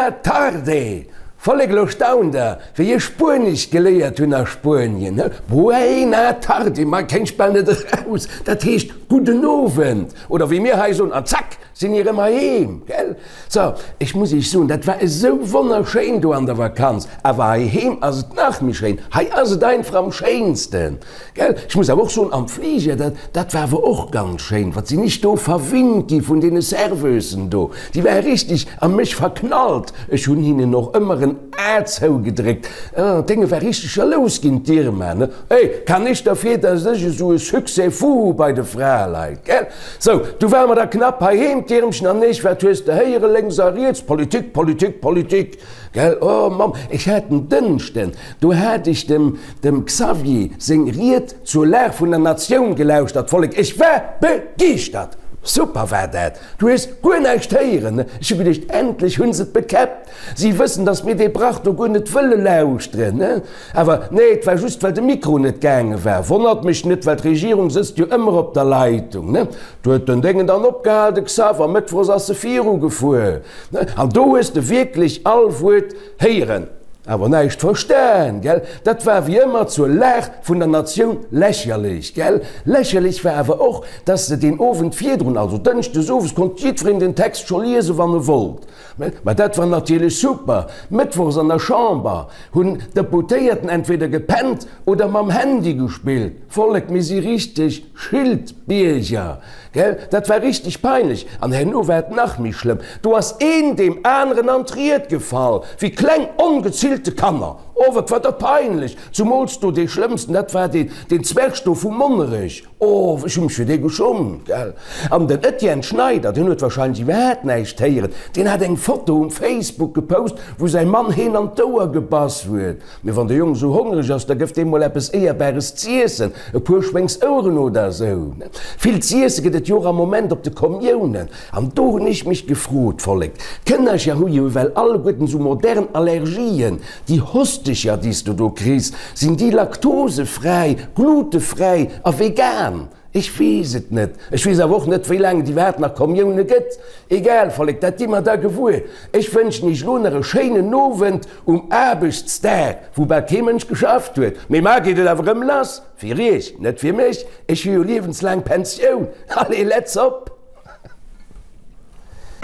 Buena tarde! Vollek, elo staunt der, wéi ech Spuenesch geléiert hunn a Spuenien, he? Buena tarde, ma kéint ech bal net eraus, dat heescht gudden Owend, oder wéi mir hei soen, an zack sinn mir erëm heiheem, gell? So, ech muss iech soen, dat war esou wonnerschéin do an der Vakanz, awer heiheem ass et nach méi schéin, hei ass et einfach am schéinsten. Gell? Ech muss awer och soen, am Fliger, dat, dat war awer och ganz schéin, wat sinn ech do verwinnt gi vun deene Serveusen do. Déi ware richtig a mech verknallt. Ech hunn hinnen och ëmmer en A zougedréckt. Ah, d'Dénge war richtig jalous ginn, d'Irma, ne? Hey, kann ech derfir, dass ech esou e Succès fou hu bei de Fraleit, gell? Sou, du ware mer da knapp heiheem, d'Irmchen an ech. Wat hues de héiere lénks a riets? Politik, Politik, Politik, gell? Oh Mamm, ech hat en Dënschden, do hat ech dem, Dem Xavier seng Ried zur Lag vun der Natioun gelauschtert, Vollek, ech war begeeschtert! Super war dat! Du hues guer näischt héieren, ne? Ech hu geduecht, endlech hunn se et bekäppt! Si wëssen, datt mir dee Brach do guer net wëlle lauschteren, ne? Awer nee, et war just, well de Mikro net gaange war. Wonnert mech net, well d'Regierung sëtzt jo ëmmer op der Leitung, ne? Do huet den Déngen dann opgehal, de Xav, a mëttwochs ass e virugefuer, ne? An do hues de wierklech all Wuert héieren. Awer näischt verstan, gell? Dat war wéi ëmmer zur Lag vun der Natioun lächerlech, gell? Lächerlech war awer och, dass se deen Owend virdrun, also dënschdes owes, konnt jiddwereen den Text scho liesen, wann e wollt. Mä dat war natierlech super. Mëttwochs an der Chamber hunn d'Deputéierten entweder gepennt oder mam Handy gespillt. Vollek, mir si richteg Schildbierger. Gell, dat war richteg peinlech. An herno war et nach méi schlëmm, do ass een deem aneren an d'Ried gefall, wéi kleng ongezillte Kanner. Oh, wat war dat peinlech! Zumools do dee schlëmmsten, dat war deen, deen Zwerg do vu Monnerech. Oh, ech hu mech fir dee geschummt, gell. An den Etienne Schneider, deen huet wahrscheinlech iwwerhaapt näischt héieren, deen hat eng Foto um Facebook gepost, wou säi Mann heen an d'Ouer gebass huet. Mee wann de Jong esou hongreg ass, da gëff deem mol eppes Éierbares z'iessen, e puer Schwéngsoueren oder esou. Vill z'iesse gëtt et jo och am Moment op de Kommiounen. An do hunn ech mech gefrot, Vollek, d'Kënnercher hu jo ewell alleguerten esou modern Allergien, déi Hostecher, déi s du do kriss, sinn déi laktosefräi, glutefräi a vegan? Ech weess et net. Ech weess awer och net, wéi laang et iwwerhaapt nach Kommioune gëtt. Egal, Vollek, dat gi mer da gewuer. Ech wënschen iech lo nach e schéinen Owend um Aarbechtsdag, wou bal kee Mënsch geschafft huet. Mee mar geet et awer erëm lass. Fir iech, net fir mech. Ech hu jo liewenslaang Pensioun. Allez, let's op!